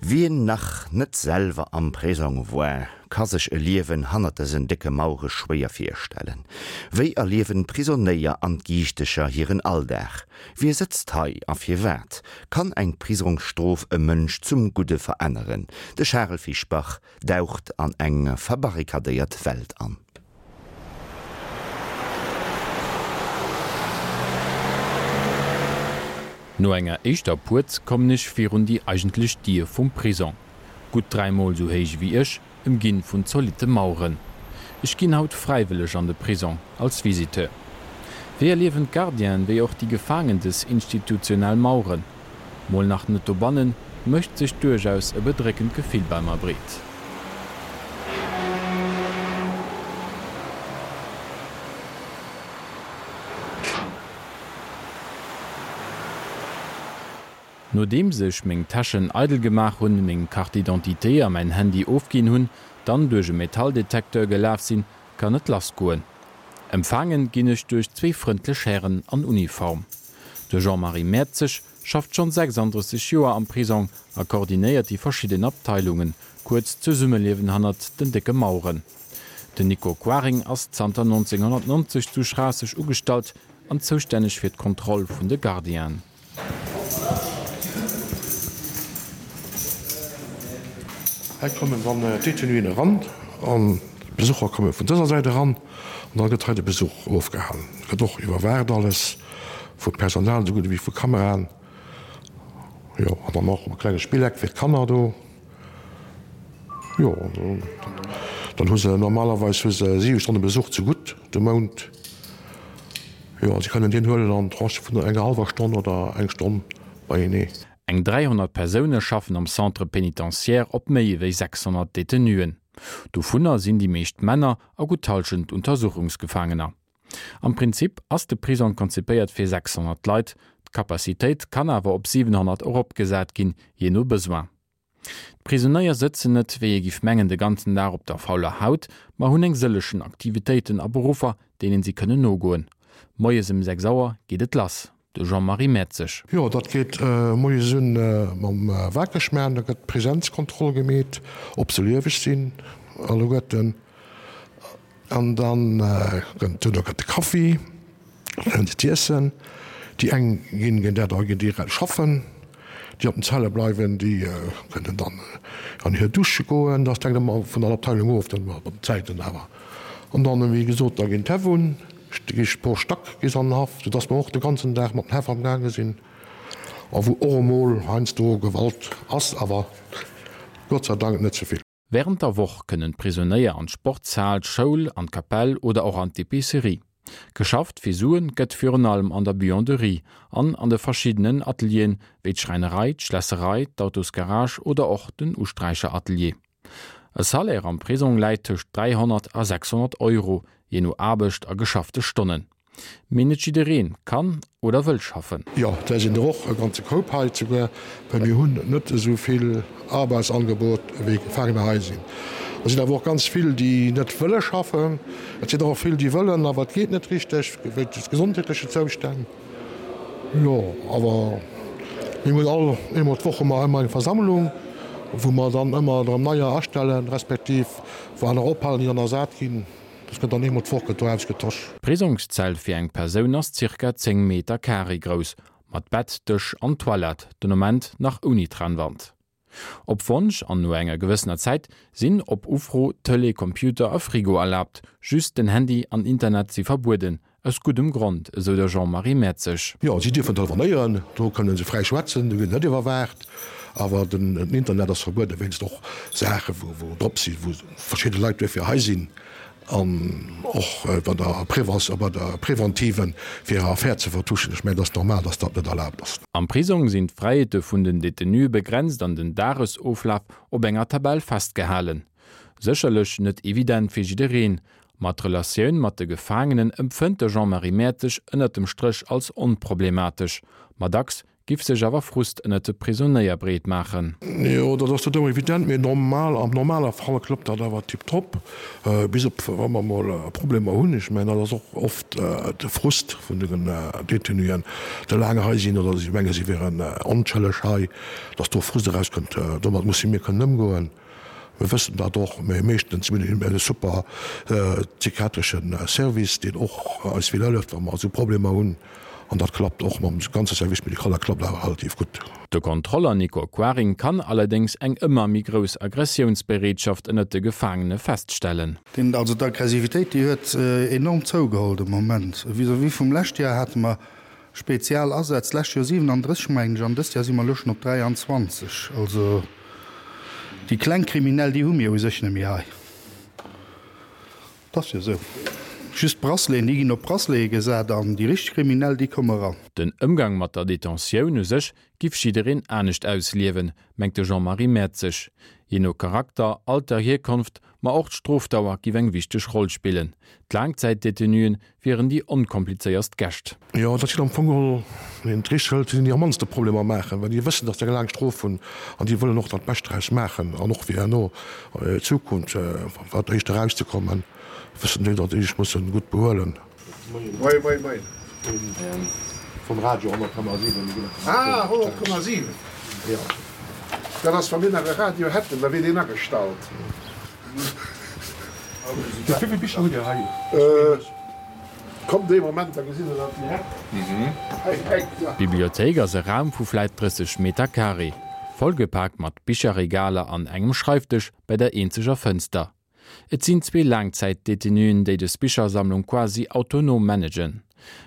Wien nach net selwer am Prisong war, ka sech e Liewen hannert dësen décke Mauere schwéier virstellen. Wéi erliewen d'Prisonéier an d'Giichtecher hiren Alldag? Wie sëtzt hei a firwat? Kann eng Prisongsstrof e Mënsch zum Gudde veränneren? De Charel Fischbach daucht an eng verbarrikadéiert Welt an. No enger éischter Puerz kommen ech virun déi eigentlech Dier vum Prisong. Gutt dräimol sou héich ewéi ech, ëmginn vun zolitte Maueren. Ech ginn haut fräiwëlleg an de Prisong, als Visiteur. Wéi erliewen d'Gardienen, wéi och déi Gefaangen des institutionell Maueren? Mol nach net dobannen, mécht sech duerchaus e bedréckend Gefill bei mer breet. Nodeems ech meng Täschen eidel gemaach hunn, meng Carte d'identité a mäin Handy ofginn hunn, dann duerch e Metalldetekteur gelaf sinn, kann et lass goen. Empfaangen ginn ech duerch zwéi frëndlech Hären an Uniform. De Jean-Marie Mertzig schafft schonn 36 Joer am Prisong a koordinéiert déi verschidden Abteilungen, kuerz d'Zesummeliewen hannert den décke Maueren. Den Nico Quaring ass zanter 1990 zu Schraasseg ugestallt an zoustänneg fir d'Kontroll vun de Gardienen. Hei kommen dann d'Detenuen eran an d'Besucher komme vun dëser Säit eran an da gëtt hei de Besuch ofgehalen. Et gëtt och iwwerwaacht alles vum Personal esou gutt ewéi vu Kameraen. Jo, an dann och e klenge Spilleck fir d'Kanner do. Jo, dann hu se normalerweis hu se siwe Stonne Besuch ze gutt de Mount. Jo, a se kënnen deen huelen an Tranchë vun enger hallwer Stonn oder eng Stonn beienee. Eng 300 Persoune schaffen am Centre pénitentiaire op méi ewéi 600 Detenuen. Dovunner sinn déi meescht Männer a gutt d'Hallschent Untersuchungsgefaangener. Am Prinzip ass de Prisong konzipéiert fir 600 Leit, d'Capacitéit kann awer op 700 eropgesat ginn, jee no Besoin. D'Prisonéier sëtzen net, wéi ee giff mengen, de ganzen Dag op der fauler Haut, ma hunn eng sëllechen Aktivitéiten a Beruffer, deenen si kënnen nogoen. Moies ëm 6 Auer geet et lass. De Jean-Marie Mertzig. Jo, dat geet moies un mam Wakerschmaan. Da gëtt d'Präsenzkontroll gemeet, ob se lieweg sinn alleguerten. An dann gëtt duerno gëtt de Kaffi, dann hunn se z'iessen. Déi eng ginn ginn dat ginn direkt schaffen, déi op den Zelle bleiwen, déi kënnen dann an hir Dusche goen. Dat hänkt ëmmer vun der Abteilung of, dann mat den Zäiten awer. An dann, wéi gesot, da ginn d'Häff un, da gi pro Stack gi se an den Haff, soudass mer och de ganzen Dag mat den Häff amgaange sinn a wou och emol heiansdo Gewalt ass, awer Gott sei Dank net ze vill. Wärend der Woch kënnen d'Prisonéier an d'Sportshal, d'Schoul, an d'Kapell oder och an d'Epicerie. Geschafft fir Suen gëtt virun allem an der Buanderie an an de verschiddenen Atelieren, wéi d'Schräinerei, d'Schlässerei, d'Autosgarage oder och den Usträicheratelier. E Salaire am Prisong läit tëscht 300 a 600 Euro, jee no Aarbecht a geschaffte Stonnen. Mee net jiddereen kann oder wëll schaffen. Jo, där sinn der och e ganze Koup hei souguer, well mir hunn net esou vill Arbeitsangebot wéi Gefaangener hei sinn. Et sinn awer och ganz vill, déi net wëlle schaffen. Et sinn der och vill, déi wëllen, awer et geet net richteg wéinst gesondheetlechen Zoustänn. Jo, awer mir hunn all eemol d'Woch hu mer ëmmer eng Versammlung, wou mer dann ëmmer erëm neier astellen, respektiv wou aner ophalen, déi dann ersat ginn. Dat gëtt dann eemol d'Woch gëtt do ausgetosch. D'Prisongszell fir eng Persoun ass zirka 10 Meter Carré grouss, mat Bett, Dësch an Toilette, den Ament nach ouni Trennwand. Op Wonsch an no enger gewëssener Zäit sinn op Ufro Tëlee, Computer a Frigo erlaabt, just den Handy an Internet si verbueden, aus guddem Grond, esou de Jean-Marie Mertzig. Jo, si dierfen telefonéieren, do kënne se fräi schwätzen, do ginn se net iwwerwaacht, awer den Internet ass verbueden, wéinst och Saache wou drop sinn, wou verschidde Leit duerfir hei sinn an och bei der Prévention, bei der Preventive fir hir Affär ze vertuschen. Ech mengen, et ass normal, datt dat net erlaabt ass. Am Prisong sinn d'Fräiheete vun den Detenue begrenzt an den Dagesoflaf op enger Tabell festgehalen. Sécherlech net evident fir jiddereen, ma d'Relatioun mat de Gefaangenen empfënnt de Jean-Marie Mertzig ënnert dem Stréch als onproblematesch. Ma dacks. Giff sech awer Frust ënnert de Prisonéier breet maachen. Jo, dat ass net ëmmer evident, mee normal, am normale Fall klappt dat awer tiptop, bis op wa mer mol Problemer hunn. Ech mengen, dat ass och oft de Frust vun den Détenuen, déi laang hei sinn oder si menge si wieren onschëlleg hei, datt do Frust erauskënnt. Domat musse mir kënnen ëmgoen. Mir wëssen dat och, mee meeschtens mir hunn e super psychiatresche Service, deen och eis vill hëlleft, wa mer esou Problemer hunn. An dat klappt och mam ganze Service médical, dat klappt awer relativ gutt. De Kontroller Nico Quaring kann allerdéngs eng ëmmer méi grouss Aggressiounsbereetschaft ënnert de Gefaangene feststellen. Deen, also d'Aggressivitéit, déi huet enorm zougeholl de Moment. Vis-à-vis vum lescht Joer hate mer spezial Asätz, d'lescht Joer 37 mengen ech, an dëst Joer si mer elo schonn op 23. Also déi kleng Kriminell, déi hu mir u sech net méi hei. 't ass jo esou. Just d'Braceleten, déi ginn op Bracelete gesat an déi richteg Kriminell, déi komme ran. Den Ëmgang mat der Detentioun u sech giff jiddereen anescht ausliewen, mengt de Jean-Marie Mertzig. Jee no Charakter, Alter, Hierkonft, ma och d'Strofdauer giff eng wichteg Roll spillen. D'Laangzäitdetenuen wieren déi onkomplizéierst Gäscht. Jo, dat sinn am Fong geholl, wann een et richteg hëlt, sinn déi am mannste Problemer maachen, well déi wëssen, datt se eng laang Strof hunn an déi wëllen och dat Bescht draus maachen an och fir herno d'Zukunft, wat éischter erauszekommen, wëssen déi, datt déi sech musse gutt behuelen. Moien, moien, moien. Vum Radio 100,7. Ah, 100,7. Jo. Dat ass, wa mir nach e Radio hätten, da wier deen agestallt. Wéi vill Bicher hutt Dir hei? Kommt ee Moment, da gesitt Der dat direkt. Hei, eng, da. D'Bibliothéik ass e Raum vu vläit 30 Meter carré, vollgepaakt mat Bicherregaler an engem Schreifdësch bei der eenzeger Fënster. Et sinn zwee Laangzäitdetenuen, déi des Bichersammlung quasi autonom managen.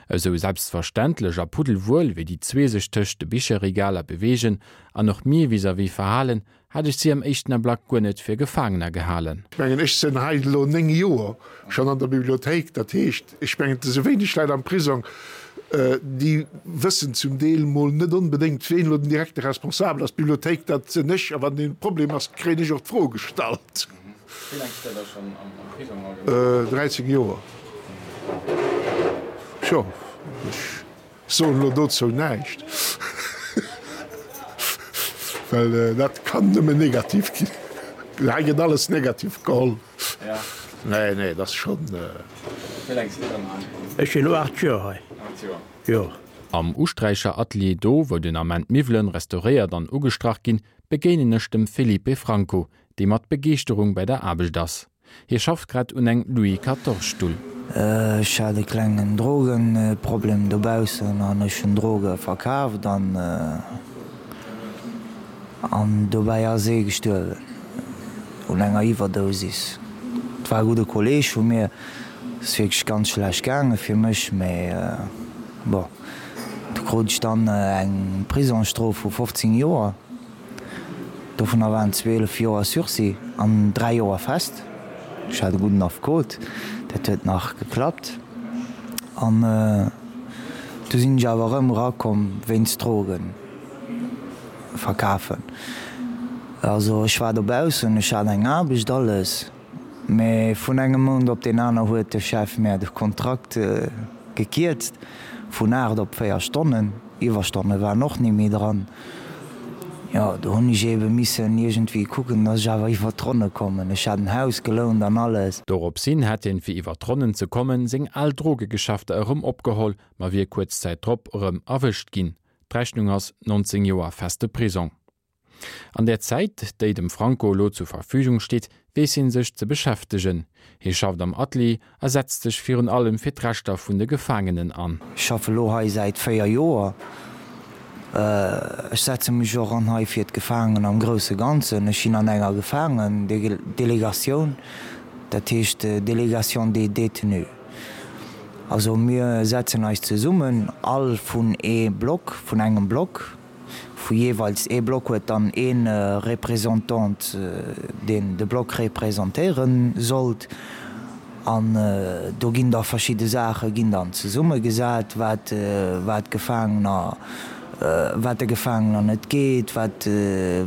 Esou selbstverständlech a puddelwuel, wéi déi zwee sech tëscht de Bicherregaler beweegen an och mir vis-à-vis verhalen, hat ech si am éischten Ablack guer net fir Gefaangener gehalen. Ech mengen, ech sinn hei elo 9 Joer schonn an der Bibliothéik. Dat heescht, ech mengen, et si wéineg Leit am Prisong, déi wëssen zum Deel mol net onbedéngt, ween elo den direkte Responsabel ass. D'Bibliothéik, dat sinn ech. A wann e Problem ass, kréien ech och d'Fro gestallt. Wéi laang sidd Der da schonn am Prisong allgemeng? 13 Joer. Tjo, ech Soen elo dozou näischt, well dat kann nëmmen negativ ginn. Hei gëtt alles negativ geholl. Nee, nee, dat ass schonn. Wéi laang sidd Der dann hei? Ech sinn elo 8 Joer hei. 8 Joer. Jo. Am Usträicheratelier, do wou den Ament d'Miwwelen restauréiert an ugestrach ginn, begéinen ech dem Felipe Franco, dee mat Begeeschterung bei der Aarbecht ass. Hie schafft grad un engem Louis Quatorze Stull. Ech hat e klengen Drogenproblem dobaussen an ech hunn Droge verkaaft an an dobäi ass ee gestuerwen un enger Iwwerdosis. Et war e gudde Kolleeg vu mir. Et ass wierklech ganz schlecht gaange fir mech, mee bon, du krut ech dann eng Prisongsstrof vu 15 Joer. Dovunner waren 12 Joer Sursis an 3 Joer fest. Ech hat e gudden Affekot, dat huet nach geklappt. An du sinn ech awer erëm erakomm wéinst Drogen verkafen. Also ech war dobaussen, ech hat eng Aarbecht, alles, mee vun engem Mount op deen aner huet de Chef mär de Kontrakt gekierzt vun 8 op 4 Stonnen. Iwwerstonne waren och ni méi dran. Jo, do hunn ech eebe missen iergendwéi kucken, dass ech awer iwwert d'Ronne kommen. Ech hat en Haus gelount an alles. Dorops hin hätt hien, fir iwwert d'Ronnen ze kommen, seng al Drogegeschäfter erëm opgeholl, ma wier kuerz Zäit drop erëm erwëscht ginn. D'Rechnung ass 19 Joer feste Prisong. An där Zäit, déi dem Franco elo zur Verfügung steet, weess hien sech ze beschäftegen. Hie schafft am Atelier a setzt sech virun allem fir d'Rechter vun de Gefaangenen an. Ech schaffe lo hei säit 4 Joer. Ech setze mech och an hei fir d'Gefaangen am grousse Ganzen. Ech sinn an enger Gefaangendelegatioun, dat heescht Délégation des détenus. Also mir setzen eis zesummen, all vun ee Block, vun engem Block. Vu jeeweils ee Block huet dann ee Représentant, deen de Block representéiere sollt. An do ginn da verschidde Saache ginn dann zesummegesat, wat wat d'Gefaangener. wat de Gefaangener net geet, wat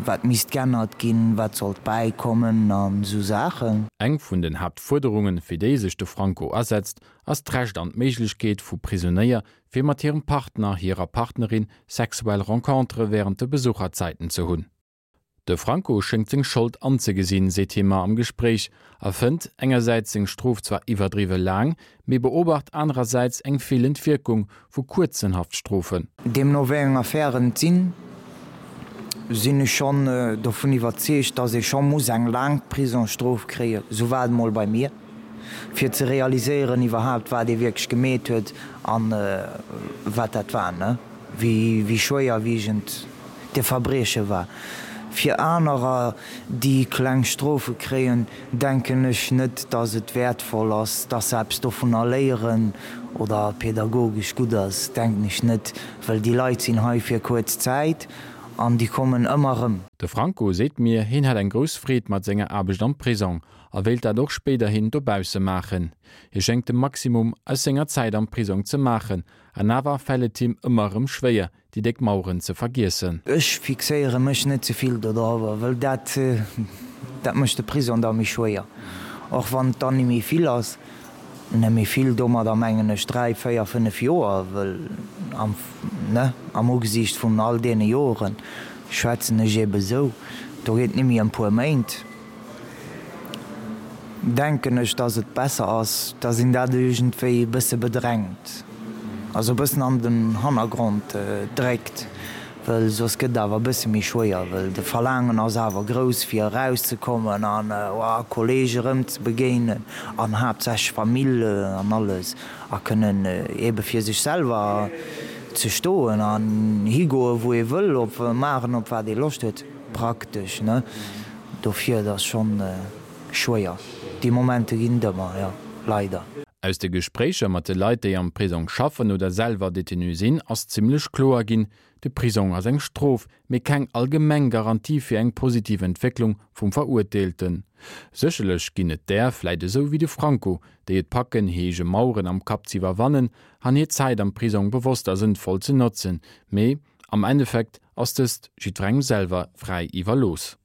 wat misst g'ännert ginn, wat sollt bäikommen an esou Saachen. Eng vun den Haaptfuerderungen, fir déi sech de Franco asetzt, ass d'Recht an d'Méiglechkeet vu Prisonéier, fir mat hirem Partner, hirer Partnerin sexuell Rencontere wärend de Besucherzäiten ze hunn. De Franco schéngt seng Schold anzegesinn, seet hie mer am Gespréich, a fënnt engersäits seng Strof zwar iwwerdriwwe laang, mee beobacht anerersäits eng feelend Wierkung vu kuerzen Haftstrofen. Deemno wéi eng Affären et sinn, sinn ech schonn dovun iwwerzeegt, datt ee scho muss eng laang Prisongsstrof kréien, esou war et emol bei mir, fir ze realiséieren iwwerhaapt wat ee wierklech gemeet huet an wat dat war, ne? Wéi schwéierwiegend de Verbrieche war. Fir anerer, déi kleng Strofe kréien, denken ech net, dass et wäertvoll ass, dass se eppes dovunner léieren oder pädagogesch gutt ass, denken ech net, well déi Leit sinn hei fir kuerz Zäit an déi kommen ëmmer erëm. De Franco seet mir, hien hätt eng grouss Freed mat senger Aarbecht am Prisong a wéilt dat och spéiderhin dobausse maachen. Hie schéngt de Maximum aus senger Zäit am Prisong ze maachen An awer fält et him ëmmer erëm schwéier, déi déck Maueren ze vergiessen. Ech fixéiere mech net ze vill dodrower, wëll dat, dat mécht de Prisong da méi schwéier. Och wann et dann ni méi vill ass, net méi vill, domadder mengen ech 3, 4, 5 Joer, wëll am, ne, am Ugesiicht vun all deene Joren schwätzen ech eebe sou, do geet et ni méi ëm puer Méint. Denken ech, dass et besser ass, dass een dat iergendwéi e bësse bedrängt, also e bëssen an den Hannergrond dréckt, well soss gëtt et awer e bësse méi schwéier, well de Verlaangen ass awer grouss fir erauszekommen an Kollege erëm ze begéinen an haaptsächlech Famill an alles a kënnen eebe fir sech selwer ze stoen an higoe wou ee wëll, op maachen op wat ee Loscht huet praktesch, ne. Dofir, et ass schonn schwéier. Déi Momente ginn et ëmmer, jo, leider. Aus de Gespréicher mat de Leit, déi am Prisong schaffen oder selwer Detenu sinn, ass zimmlech kloer ginn, De Prisong ass eng Strof, mee keng allgemeng Garantie fir eng positiv Entwécklung vum Verurteelten. Sécherlech ginn et där, vläit esou wéi de Franco, déi et packen, hir eege Maueren am Kapp z'iwwerwannen an hir Zäit am Prisong bewosst a sënnvoll ze notzen, mee am Endeffekt ass dëst jiddwerengem selwer fräi iwwerlooss.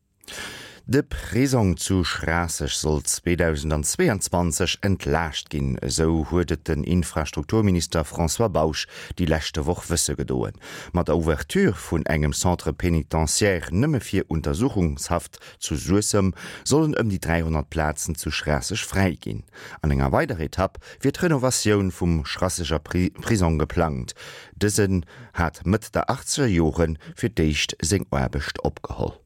De Prisong zu Schraasseg soll 2022 entlaascht ginn, esou huet et den Infrastrukturminister François Bausch déi leschte Woch wësse gedoen. Mat der Ouverture vun engem Centre pénitentiaire nëmme fir Untersuchungshaft zu Suessem sollen ëm déi 300 Plazen zu Schraasseg fräi ginn. An enger weiderer Etapp wier d'Renovatioun vum Schrasseger Prisong geplangt. Dësen hat Mëtt der achtzeger Jore fir d'éischt seng Aarbecht opgeholl.